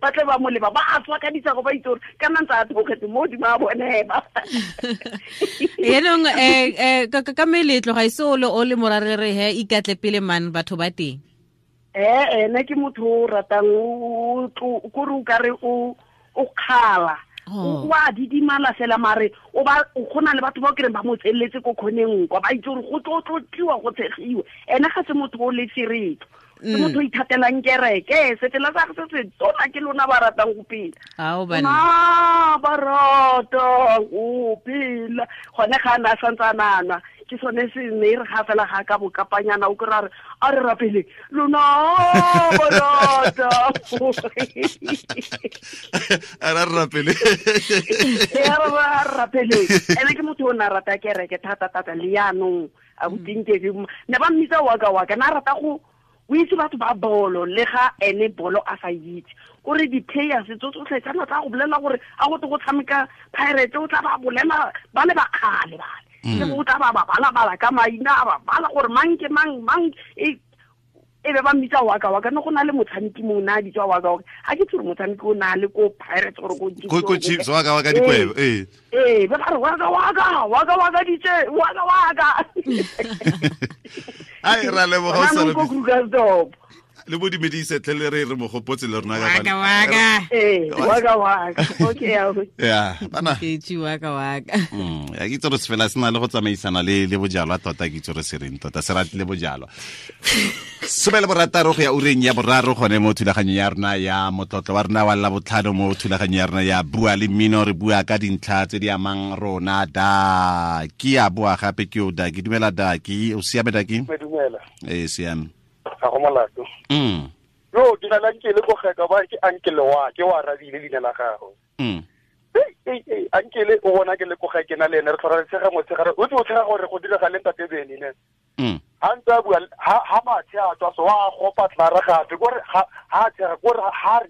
ba tle ba mo leba ba a tswa ka ditšego ba itse gore kana ntse a theogetse mo godimo a bone ba yaanong ka meletlo ga ise o le morare re he ikatle pele man batho ba teng. Ene ke motho o ratang kore o kare o kgala o a didimala fela mare o ba o gona le batho ba o kereng ba mo tseletse ko kgoneng kwa ba itse gore go tlo tlotliwa go tshegiwa. Ene ga se motho o le seretlo, ke motho o ithatelang kereke sefela sa se se tona ke lona ba ratang go phela ba rata go phela gone ga a ne a santse a nana ke sone se ne re ga fela ga ka bokapanyana o kry a re a re rapele lona ba rata a re rapele a re rapele. Ene ke motho o ne a rata kereke thata-thata le jaanong abuti Nkefi ne ba mmitsa waka waka na rata go o itse batho ba bolo le ga ene bolo a sa itse kore di-players tso tsotlhe tsana tla go bolela gore a go te go tshameka Pirates o tla ba bolela ba le ba kgale bale le o tla ba bala-bala ka maina a ba bala gore mang ke mang mang e be ba mmitsa waka waka ne go na le motshameki mongwe na a bitswa waka waka ga ke tsore motshameki o na le ko Pirates gore ko Chiefs waka waka dikwebo ee ba re waka waka waka waka ditse waka waka ai ra leboga o sa ko Krugersdorp le bo dumedise tle le re re mo gopotse le rona ka waka waka waka waka okay ya bana ke tsi waka waka ya ke tsore se fela se na le go tsamaisana le bojalwa tota ke tsore se reng tota se ratile bojalwa 16 go ya ureng ya boraro gone mo thulaganyong ya rona ya motlotlo wa rona wa la botlhano mo thulaganyong ya rona ya bua le mmino re bua ka dintlha tse di amang rona da ke a boa gape ke o da ke dumela da ke o siame da ke dumela e siame ga go molato yo ke na le ankele ko geka ba ke ankele wa ke wa arabile leina la gago ankele o bona ke le ko ga ke na le ene re tlhora re tshega motshegare o tse o tshega gore go direga le ntate Bene ne ha ntse a bua ha mathe a tswa so wa gopa tlara gape kore ha tshega kore ha re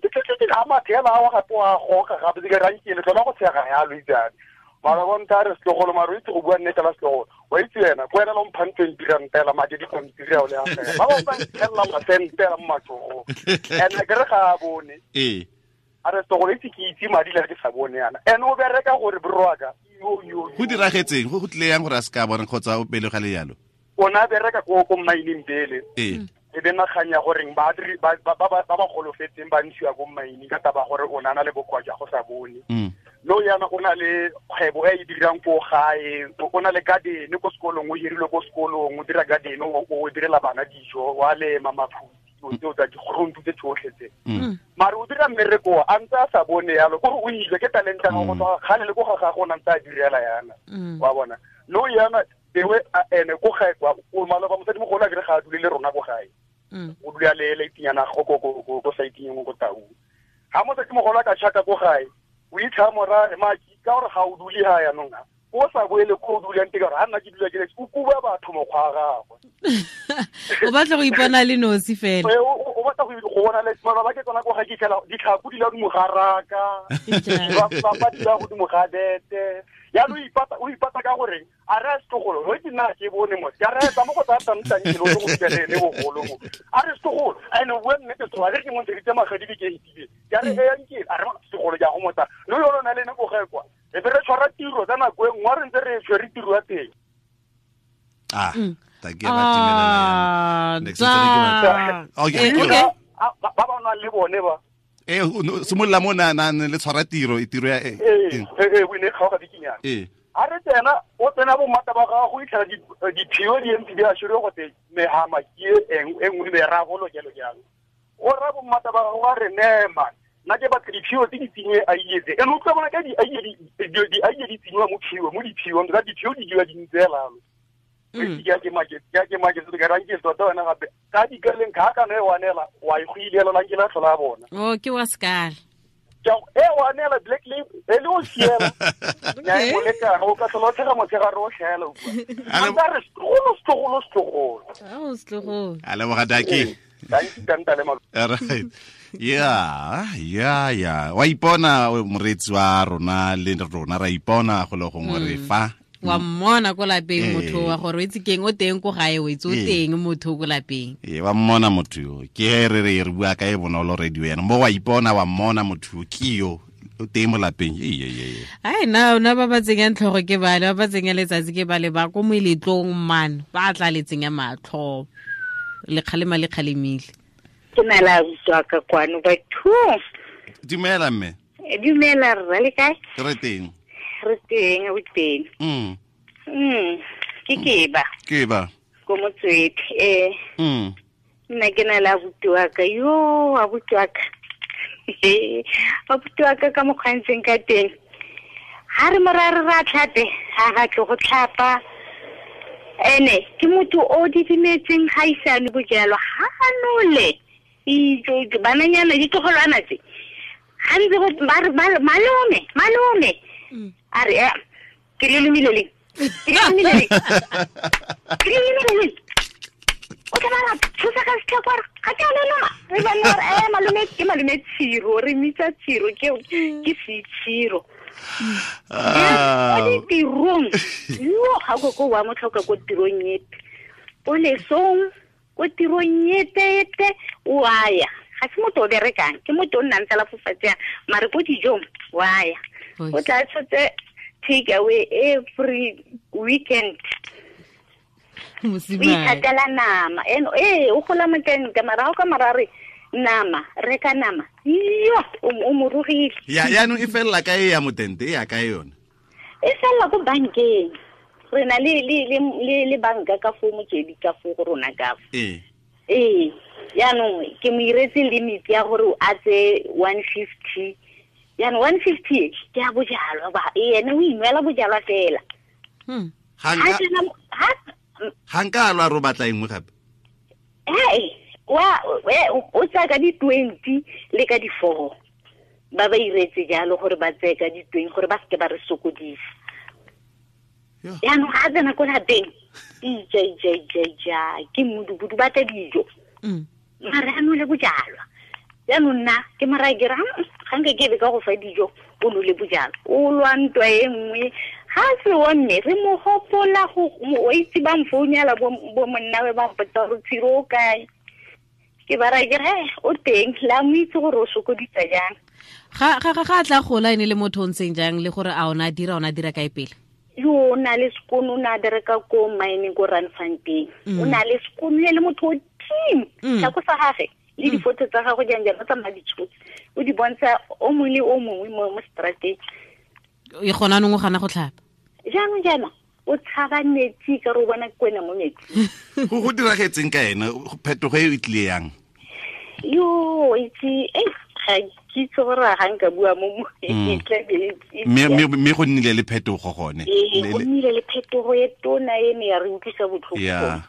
ha mathe a wa gape wa goka gape ke rankele tlhola go tshega yalo itsane mara bonta re setlogolo mara o itse go bua nnete la setlogolo wa itse wena ko wena le mphang 20 rand madi di pampiri ao le a fela ba ba nthelela masentela mo matsogong ene ke re ga a bone a re setlogolo itse ke itse madi le ke sa bone yana ene o bereka gore borwaka go diragetseng go tlile yang gore a se ka bona kgotsa o pele ga le yalo o na bereka ko mmineng pele e be naganya goreng ba ba golofetseng ba ntshiwa ko mmineng ka taba gore o na le bokoa jwa go sa bone no yana o na le kgwebo e e dirang ko gae o na le garden ko sekolong o hirilwe ko sekolong o dira garden o direla bana dijo wa lema maphutsi dilo tseo tsa digruntu tse tsotlhe tse. Mare o dira mmereko a ntse a sa bone yalo, kore o ile ke talenta ga go tswa kgale le ko ga gagwe o ne ntse a direla yana. Wa bona no yana ewe ene ko gae kwa o maloba mosadimogolo a kere ga a dule le rona ko gae. O dula le leitinyana go ko ko saiting ko Tau. Ha mosadimogolo a ka chaka ko gae o itlha mora maki ka gore ga o dule ha yanong o sa boele ko o dulang teng ka gore ha nna ke dula ke le o kuba batho mokgwa wa gagwe. O batla go ipona le nosi fela. O batla go bona le maloba ke tsona ko ga ke fitlhela ditlhako di la godimo ga raka, ba di la godimo ga bete. Jaanong o ipata ka gore a re a setlogolo o ke nna ke bone mo ke re tsa mo go tsaya tsamtang ke lo go fitlhele le bogolo mo a re setlogolo ene o bua nnete setlogolo a re ke mo ntsheditse magadi ke itile ke a re e yang ke a re setlogolo ke a go motsa le yone o na le ene ko gae kwa e be re tshwara tiro tsa nako e nngwe re ntse re tshwere tiro ya teng. Ta ke ba timelela yana. Next okay. Ba ba nang le bone ba simolola mo na le tshwara tiro e tiro ya o ne kgaoga bikinyana. A re tsena o tsena bo mmata ba gago go itlhela diphio di ntse di a shire go tse mehama ke e nngwe meragolo jalo jalo. O ra bo mmata ba gago a re nema nna ke batla diphio tse di tsenye a ietse ene o tla bona ka di aiye di tsenyiwa mo phio mo diphiong ka diphio di dira di ntse lalo. Ke make se ka ranke tota wena gape ka dikaleng ka kana e wanela wa e go ilela la ke la tlhola bona. Oh ke wa sekala. E wanela black label e le o siela. Ya e moleka o ka tlhola tshega motshegare o tlhela o bua. A re setlogolo. Oh setlogolo. A leboga Daki. Right. Yeah. Wa ipona moreetsi wa rona le rona ra ipona go le gongwe re fa. Wa mmona ko lapeng motho wa gore o itse keng o teng ko gae o itse o teng motho ko lapeng. Wa mmona motho yo ke re re bua ka e bonolo radio yana mo wa ipona wa mmona motho ke yo o teng mo lapeng. Ai na ba ba tsenyang tlhogo ke bale ba ba tsenya letsatsi ke bale ba ko moeletlong man ba tla le tsenya matlho le kgalema le kgalemile. Ke na la utlwa ka kwano batho. Dumela mme. Dumela rra le kae? Re teng. Re teng o teng. Ke keba. Keba. Ko Motswedi. Nna ke na le abuti wa ka yo abuti wa ka. Abuti wa ka ka mokgwantseng ka teng. Ha re morare ra tlhape, ha ga tle go tlhapa. Ene ke motho o didimetseng ga isane bojalwa ha nole. Ijo bananyana ditlogolwana tse. Ha ntse go malome. A re ke le lumile le. O tla ba thusa ka setlhakwa ga ke a loma. Re ba nna re malome ke malome tshiro re mitsa tshiro ke se tshiro. O ditirong yo ga go ko wa motlhoka ko tirong epe. O lesong ko tirong epe o aya. Ga se motho o berekang ke motho o nnang fela fo fatshe mare ko dijong wa ya. O tla tshotse take away every weekend. O ithatela nama eno o gola moteng ka marago ka marare nama reka nama yo o morogile. Ya yaanong e felela ka e ya motente e ya ka yone. E felela ko bankeng. Re na le banka ka fo Motswedi ka fo go rona ka fo. Yaanong ke mo iretse limit ya gore a tse 150. Yaanong 150 ke a bojalwa ba ene o inwela bojalwa fela. Ga nka a lwa ro batla engwe gape. Wa o tsaya ka di 20 le ka di 4. Ba ba iretse jalo gore ba tseye ka di 20 gore ba seke ba re sokodisa. Yaanong ga a tsena ko lapeng ija ke mmudubudu ba tla dijo. Mare a nole bojalwa. Jaanong nna ke moraya ke re ga nka ke be ka go fa dijo o nole bojalwa. O lwa ntwa e nngwe ga se wa mme re mo gopola go o itse ba mfounela bo monnawe ba mpotsa gore tshiro o kae. Ke ba raya ke re o teng la mo itse gore o sokodisa jang. Ga ga tla gola ene le motho o ntseng jang le gore a ona dira kae pele? Yo o na le sekono o ne a bereka ko mining ko Randfontein. O na le sekono le motho o team. Tlhako sa gagwe le difoto tsa gagwe jang jang o tsamaya ditshotse. O di bontsha o mongwe le o mongwe mo strateng. E gona nong o gana go tlhapa. Jaanong jaana o tshaba metsi ka re o bona kwena mo metsing. Go diragetseng ka ene phetogo e tlile yang? Yo itse ga ke itse gore ga nka bua mo mme go nnile le phetogo gone. Go nnile le phetogo e tona e ne ya re utlwisa botlhoko. Yeah.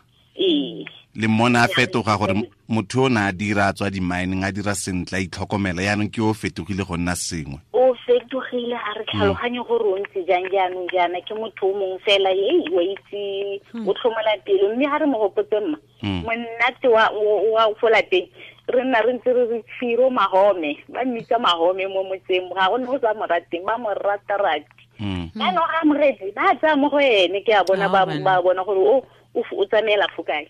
Le mmona a fetoga gore motho o ne a dira a tswa di-mining a dira sentle a itlhokomela, yaanong ke o fetogile go nna sengwe. O fetogile, ga re tlhaloganye gore o ntse jang jaanong jaana, ke motho o mongwe fela wa itse o tlhomola pelo, mme ga re mo gopotse mma monate wa fo lapeng re nna re ntse re re Tshiro Mahome, ba mmitsa Mahome mo motseng, ga go ne go sa mo rateng, ba mo rata-rati. Jaanong ga amogetse ba tsaya mo go ene, ke a bona ba bona gore o tsamaela fo kae.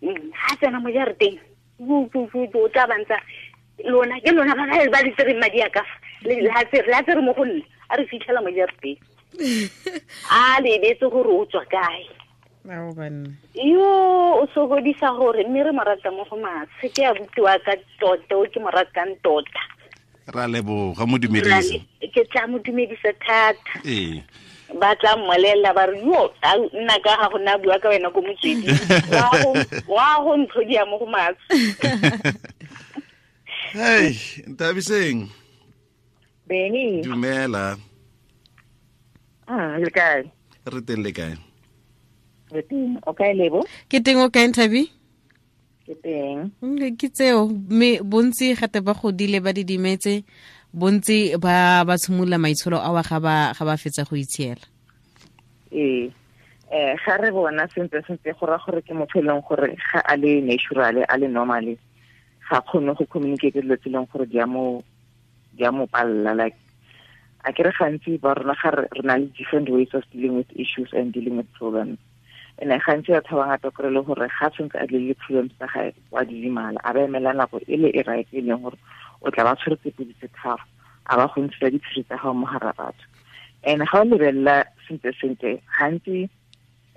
Ha tsena mo jarateng o tla bantsa lona ke lona ba ba di tsereng madi a ka fa la tsere mo go nna a re fitlhela mo jarateng a lebetse gore o tswa kae. Yo o sokodisa gore mme re mo rata mo go matshe, ke a butiwa ka tota o ke mo ratang tota. Ra leboga, mo dumedisa. Ke tla mo dumedisa thata. Ee. Ba tla mmolelela ba re yo nna ka ga go nna bua ka wena ko motsweding wa go ntlhodia mo go matshe. Hey, Nthabiseng. Beni. Dumela. Le kae? Re teng, le kae? Re teng, o kae Lebo? Ke teng, o kae Nthabi? Ke teng. Ke tseo, mme bontsi gate ba godile ba didimetse, bontsi ba tshimolola maitsholo a wa ga ba fetsa go itshiela. Ee, ga re bona sentle sentle go ra gore ke motho e leng gore ga a le natural, a le normal, ga kgone go communicate dilo tse e leng gore di a mo palela. Like a ke re gantsi ba rona ga re na le different ways of dealing with issues and dealing with problems. And gantsi batho ba bangata kry le gore ga tshwanetse a deal le problems tsa gae wa didimala, a ba emela nako e le e right e leng gore o tla ba tshwere tse pedi tse tharo, a ba go ntsha diphiri tsa gago mo gare batho. And ga o lebelela sentle sentle gantsi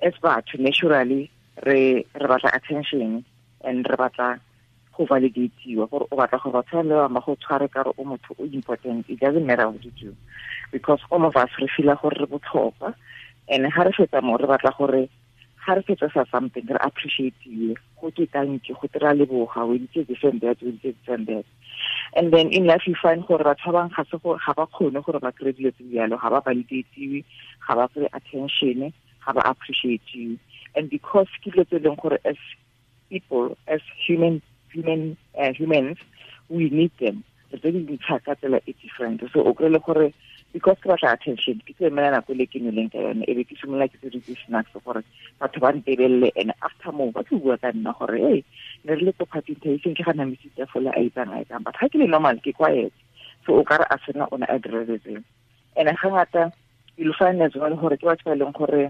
as batho naturally re batla attention and re batla go validatiwa, gore o batla gore batho ba le bangwe ba go tshware ka re o motho o important. It doesn't matter what you do, because all of us re feela gore re botlhokwa. And ga re fetsa mo re batla gore ga re fetsa sa something re appreciate-iwe, go ke thank you, go tira leboga, we did this and that, we did this and that. And then in life you find gore batho ba bangwe ga se gore ga ba kgone gore ba kry-e dilo tse jalo, ga ba validatiwe, ga ba kry attention, ga ba appreciate-iwe. And because ke dilo tse e leng gore as people, as humans, we need them. Re tse di ntsha ka tsela e different. So o kry-e le gore because ke batla attention, ke tlo emela nako e le ke nweleng ka yone, e be ke simolola ke tse di snacks gore batho ba ntebelele, and after moo ba tlo bua ka nna gore hey, ne re le ko party e ke ga namisitse fola a itsang a itsang, but ga ke le normal ke quiet. So o kare a sena o ne a direletseng. And ga ngata you'll find as well gore ke batho ba e leng gore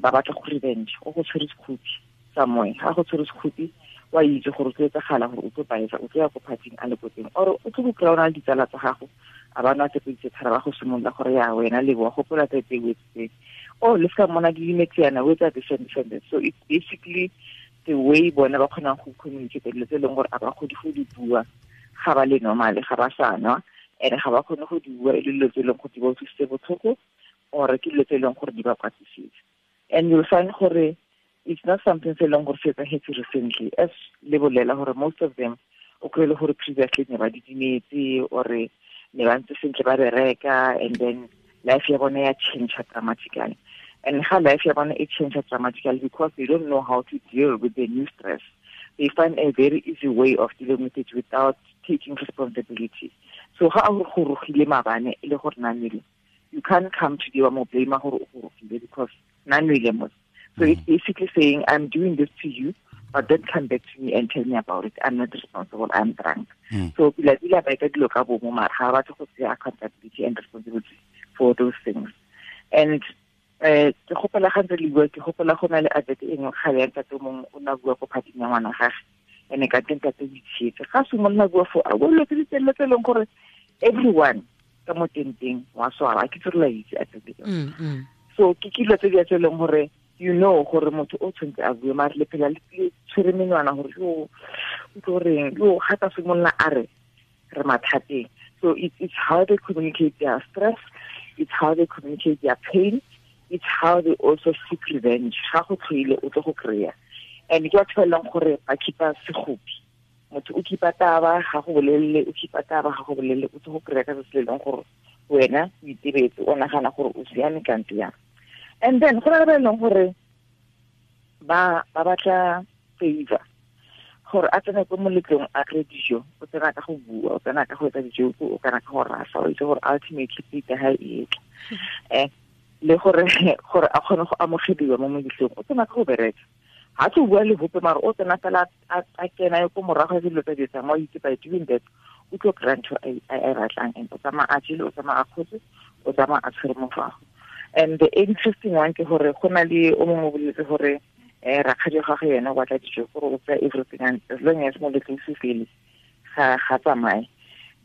ba batla go revenge, o go tshwere sekhupi somewhere, ga go tshwere sekhupi wa itse gore o tlo etsagala gore o tlo baetsa, o tlo ya ko party-ing a le ko teng, or o tlo go kry-a o na le ditsala tsa gago a ba nwa tse pedi tse tharo, ba go simolola gore ya wena Lebo wa gopola tse tse o etseng, oh le seka mmona didimetse yana o etsa this and this and this. So it's basically the way bona ba kgonang go communicate dilo tse e leng gore a ba kgone go di bua ga ba le normal, ga ba sa nwa, and ga ba kgone go di bua e le dilo tse e leng gore di ba utlwisitse botlhoko, or ke dilo tse e leng gore di ba kwatisitse. And you'll find gore it's not something se leng gore se etsahetse recently, as le bolela gore most of them o kry-e le gore previously ne ba didimetse or ne ba ntse sentle ba bereka, and then life ya bone ya change dramatically. And ga life ya bone e change dramatically because they don't know how to deal with the new stress. They find a very easy way of dealing with it without taking responsibility. So ga o go rogile maabane e le gore na nwele, you can't come to the mo blame gore o go rogile because na nwele mo. So it's basically saying, I'm doing this to you, but don't come back to me and tell me about it. I'm not responsible. I'm drunk. So pila pila ba etsa dilo ka bomo, mara ga ba batle go tsaya accountability and responsibility for those things. And ke gopola ga ntse le bua, ke gopola go na le advert e nngwe kgale ya ntate o mongwe o ne a bua ko party-ing ya ngwana gage, ene ka teng ntate o itshietse. Ga simolola bua foo, a bua dilo tse di telele tse e leng gore everyone ka mo tenteng wa swara, ke tse re la itse advert eo. So ke dilo tse di tse e leng gore you know gore motho o tshwanetse a bue, mare le phela le tshwere menwana gore yo o tlo reng, yo ga ka simolola a re re mathateng. So it's how they communicate their stress, it's how they communicate their pain, it's how they also seek revenge. Ga go tlhoile o tlo go kry-a. And ke batho ba e leng gore ba keep-a sekgopi. Motho o khipa taba ga go bolelle, o khipa taba ga go bolelle, o tlo go kry-a ka se se leng gore wena o itebetse, o nagana gore o siame kante yang. And then go na le ba e leng gore ba batla favor, gore a tsena ko moletlong a kry dijo, o tsena ka go bua, o tsena ka go etsa dijo, o kana ka go rasa, o itse gore ultimately plate ya hae e tla. Le gore a kgone go amogediwa mo moletlong, o tsena ka go bereka. Ha tlo bua le hope mara o tsena fela a kena ko morago ga dilo tsa di etsang, wa itse by doing that o tlo kry-a ntho a e batlang, and o tsamaya a jele, o tsamaya a kgotse, o tsamaya a tshwere mofago. And the interesting one ke gore go na le o mongwe o boletse gore rakgadi wa gagwe yena o batla dijo, gore o tsaya everything, and as long as moletlo o se fele ga tsamaye.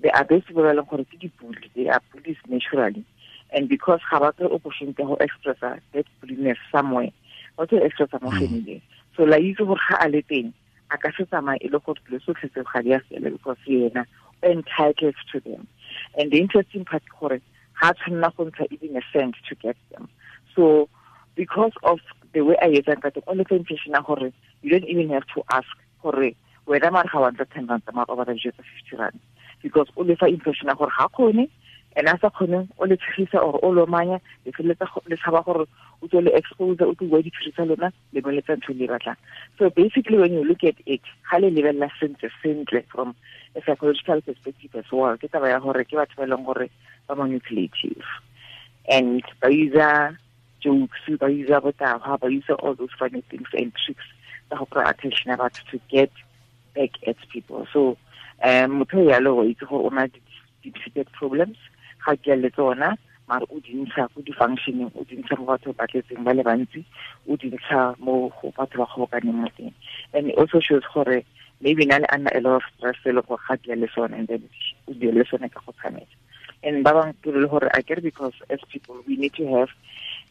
They are those people ba leng gore ke di-bully, they are bullies naturally, and because ga ba kry opportunity ya go expressa that bulliness somewhere, ba tlo expressa mo family. So la itse gore ga a le teng a ka se tsamaye e le gore dilo tsotlhe tseo ga di a fela, because yena o entitled to them. And the interesting part ke gore ga a tshwanela go ntsha even a cent to get them. So because of the way a etsang ka teng, o le fa impression ya gore you don't even have to ask gore wena mare ga wa ntsha 10 rand, mare o batla dijo tsa 50 rand, because o le fa impression ya gore ga kgone, and a sa kgone o le tshegisa or o lomanya, le feleletsa le tshaba gore o tswe le expose, o tlo bua diphiri tsa lona, le boletsa ntho le batlang. So basically when you look at it, ga le lebelela sentle sentle from a psychological perspective as well, ke taba ya gore ke batho ba e leng gore ba manipulative, and ba usa jokes, ba usa botahwa, ba usa all those funny things and tricks tsa go kry attention ya batho to get back at people. So motho yalo o itse gore o na deep-seated problems, ga ke le tsona, mara o di ntsha ko di-functioning, o di ntsha mo batho ba tletseng ba le bantsi, o di ntsha mo go batho ba kgobokaneng mo teng. And it also shows gore maybe na le ana a lot of stress e le gore ga ke le sone, and then o di le sone ka go tshameka. And ba bangwe ke le gore akere, because as people we need to have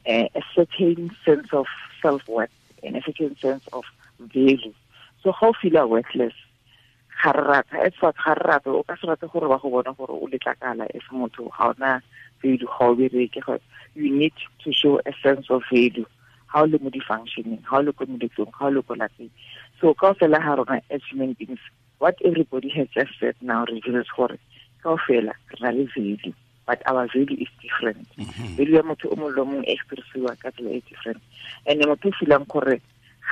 a certain sense of self-worth and a certain sense of value. So ga o feel worthless, ga re rata, as far ga re rata, o ka se rate gore ba go bona gore o letlakala as motho, ga ona value, ga o bereke. You need to show a sense of value ga o le mo di-functioning, ga o le ko moletlong, ga o le ko lapeng. So kaofela ga rona as human beings, what everybody has just said now reveals gore kaofela re na le value, but our value is different. Value ya motho o mongwe le o mongwe e expressiwa ka tsela e different. And motho o feelang gore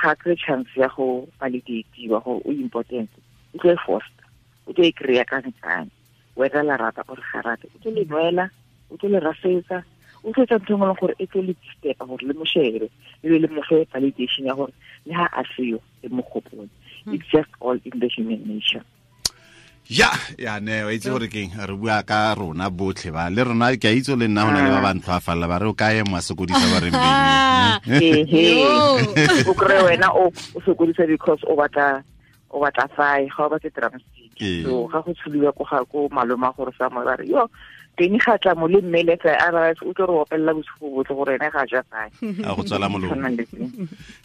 ga kry chance ya go validatiwa gore o important, o tlo e foster, o tlo e kry-a ka nkane, whether la rata or ga rate, o tlo le nwela, o tlo le rasetsa, o tlo etsa ntho e nngwe gore e tlo le disturba gore le mo shebe, le be le mo fe validation ya gore le ha a seyo le mo gopole. It's just all in the human nature. Ya ne o itse gore keng re bua ka rona botlhe ba le rona, ke a itse le nna hona le ba ba ntlo a falla ba re o kae mo sokodisa ba re mbeng. O kry wena o sokodisa because o batla fae, ga o batle drumstick. So ga go tshuliwa ko ga ko maloma gore sa mo ba re yo teng ga tla mo le mmele tsa a ba o tlo re opelela bosigo botlhe gore ene ga ja fae, a go tswala molomo.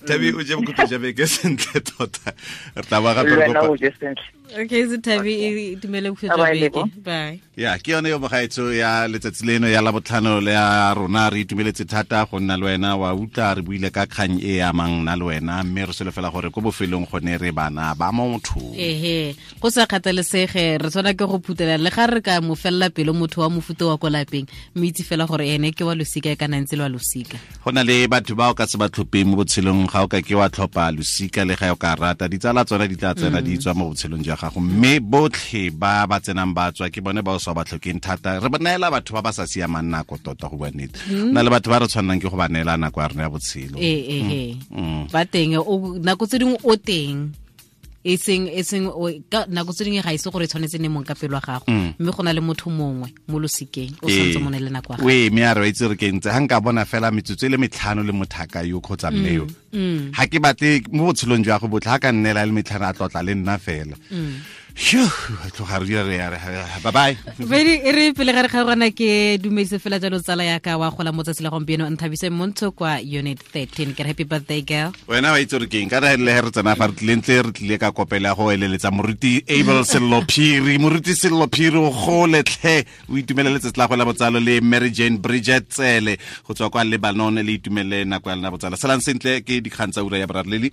Thabi o je bokhutlo ja beke sentle tota, re tla ba gape re kopa. Okay, so Thabi e dumele bokhutlo ja beke, bye. Ya ke yone yo mogaetso ya letsatsi leno ya Labotlhano le ya rona, re itumeletse thata go nna le wena, wa utlwa re buile ka kgang e amang nna le wena, mme re solofela gore ko bofelong gone re bana ba motho. Ehe, go sa kgathalesege re tshwana ke go phutela le ga re ka mo fella pelo motho wa mofuta wa ko lapeng, mme itse fela gore ene ke wa losika e kana ntse le wa losika. Go na le batho ba o ka se ba tlhopheng mo botshelong, ga o ka ke wa tlhopha losika le ga o ka rata, ditsala tsona di tla tsena di tswa mo botshelong jwa gago, mme botlhe ba ba tsenang ba tswa ke bone ba o sa ba tlhokeng thata. Re ba neela batho ba ba sa siamang nako tota, go bua nnete. Na le batho ba re tshwannang ke go ba neela nako ya rona ya botshelo. Ba teng, nako tse dingwe o teng, e seng nako tse dingwe ga ise gore e tshwanetse ne mong ka pelo ya gago, mme go na le motho mongwe mo losikeng o santse mo ne le nako ya gago. Mme a re itse re ke ntse ga nka bona fela metsotso e le metlhano le mothaka yo kgotsa mme yo, ga ke batle mo botshelong jwa go botlhe, ga ka nnela le metlhano a tlotla le nna fela. Tloga re dira re bye bye. Bedi e re pele ga re kgaogana ke dumedise fela jalo tsala ya ka wa gola mo tsatsi la gompieno, Nthabise Montsho kwa unit 13. Ke happy birthday girl. Wena wa itse re keng ka re le re tsena fa re tlile ntle re tlile ka kopela go eleletsa moruti Abel Sello Phiri, moruti Sello Phiri o gole tlhe, o itumelele letsatsi la go la botsalo le Mary Jane Bridget Tsele go tswa kwa Lebanon, le itumelele nako ya lena botsalo. Salang sentle ke dikgang tsa ura ya boraro leli.